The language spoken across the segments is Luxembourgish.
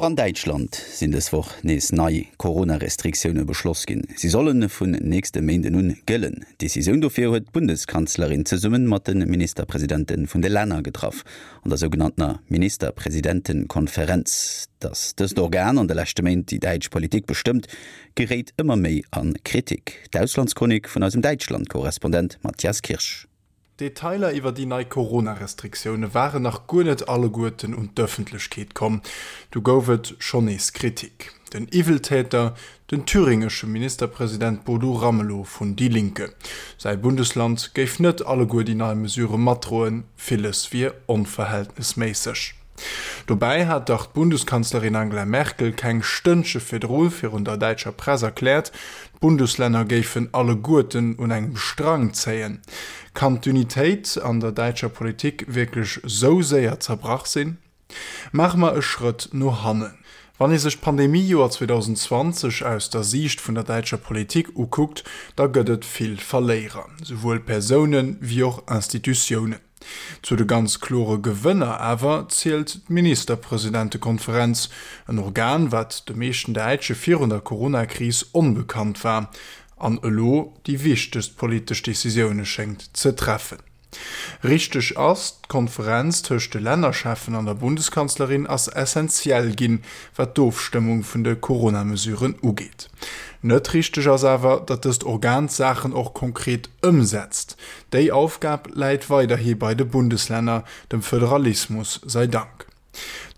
Och an Däitschland sinn dës Woch nees nei Corona-Restriktioune beschloss ginn. Si solle vun nächste Méinden un gëllen. D'Decisioun dofir huet d'Bundeskanzlerin zesumme mat de Ministerpresidente vun de Länner getraff an der sougenanntener Ministerpresidentenkonferenz. Datt dëst Organ an de leschte Méint déi däitsch Politik bestëmmt, geréit ëmmer méi a Kritik. D'Auslandschronik vun eisem Däitschland-Korrespondent Matthias Kirsch. D'Detailer iwwer déi nei Corona-Restriktioune waren nach guer net alleguerten un d'Ëffentlechkeet komm, du gouf et schonn nees Kritik. Den Iwweltäter, den thüringesche Ministerpresident Bodo Ramelow vun Die Linke. Säi Bundesland géif net alleguer déi nei Mesurë matdroen, villes wier onverhältnesméisseg. Dobäi hat dach d'Bundeskanzlerin Angela Merkel keng Stënnche virdru virun der däitscher Press erkläert, d'Bundeslänner géifen alleguerten un engem Strang zéien. Kann d'Unitéit an der däitscher Politik wierklech sou séier zerbrach sinn? Maache mer e Schrëtt no hannen. Wann ee sech d'Pandemie-Joer 2020 aus der Siicht vun der däitscher Politik ukuckt, da gëtt et vill Verléierer, souwuel Persounen, wéi och Institutiounen. Zu de ganz klore Gewënner awer zielt d'Ministerpresidentekonferenz, en Organ, wat de meeschten Däitsche virun der Corona-Kris onbekannt war an elo déi wichtegst politesch Decisioune schéngt ze treffen. Richteg ass, d'Konferenz tëscht de Lännercheffen an der Bundeskanzlerin ass essenziell ginn, wat d'Ofstëmmung vun de Corona-Mesuren ugeet. Net richteg ass awer, datt dëst Organ d'Saachen och konkret ëmsetzt. Déi Aufgab läit weiderhi bei de Bundeslänner, dem Föderalismus sei Dank.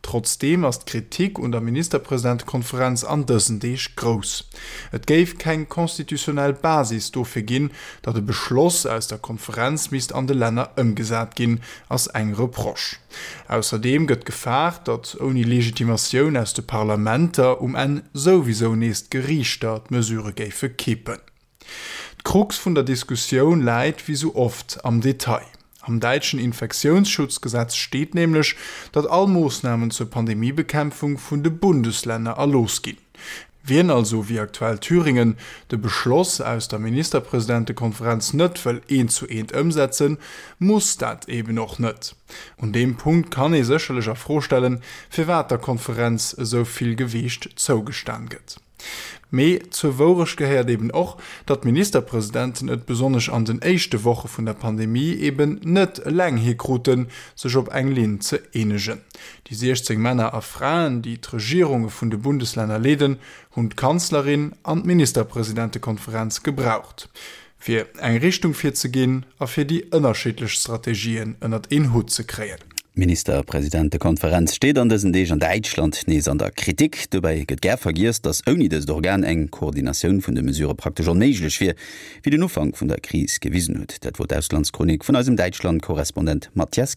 Trotzdeem ass d'Kritik un der Ministerpresidentekonferenz an dësen Deeg grouss. Et géif keng constitutionnel Basis dofir ginn, datt e Beschloss aus der Konferenz misst an de Länner ëmgesat ginn, ass eng Reproche. Ausserdeem gëtt gefaart, datt ouni Legitimatioun aus de Parlamenter um Enn souwisou nees d'Geriichter d'Mesurë géife kippen. D'Krux vun der Diskussioun läit, wéi sou oft, am Detail. Am däitschen Infektiounsschutzgesetz steet nämlech, datt all Moossnamen zur Pandemiebekämpfung vun de Bundeslänner erlooss ginn. Wien also, wéi aktuell Thüringen, de Beschloss aus der Ministerpresidentekonferenz net wëll eent zu eent ëmsetzen, muss dat eben och net. Un deem Punkt kann ee sécherlech a Fro stellen, firwat der Konferenz esou vill Gewiicht zougestan gëtt. Mee zur Wourecht gehéiert eben och, datt d'Ministerpresidenten et besonnesch an den éischte Woche vun der Pandemie eben net eleng hikruten, sech op eng Linn ze eenegen. Déi 16 Männer a Fraen, déi d'Regierunge vun de Bundeslänner leeden, hunn d'Kanzlerin an d'Ministerpresidentekonferenz gebraucht, fir eng Richtung virzeginn a fir déi ënnerschiddlech Strategien ënnert een Hutt ze kréien. D'Ministerpresidentekonferenz steet an dësen Deeg an Däitschland nees an der Kritik. Dobäi gëtt gär vergiess, datt ouni dëst Organ eng Koordinatioun vun de Mesurë praktesch onméiglech wier, wéi den Ufank vun der Kris gewisen huet. Dat wor d'Auslandschronik vun eisem Däitschland-Korrespondent Matthias Kirsch.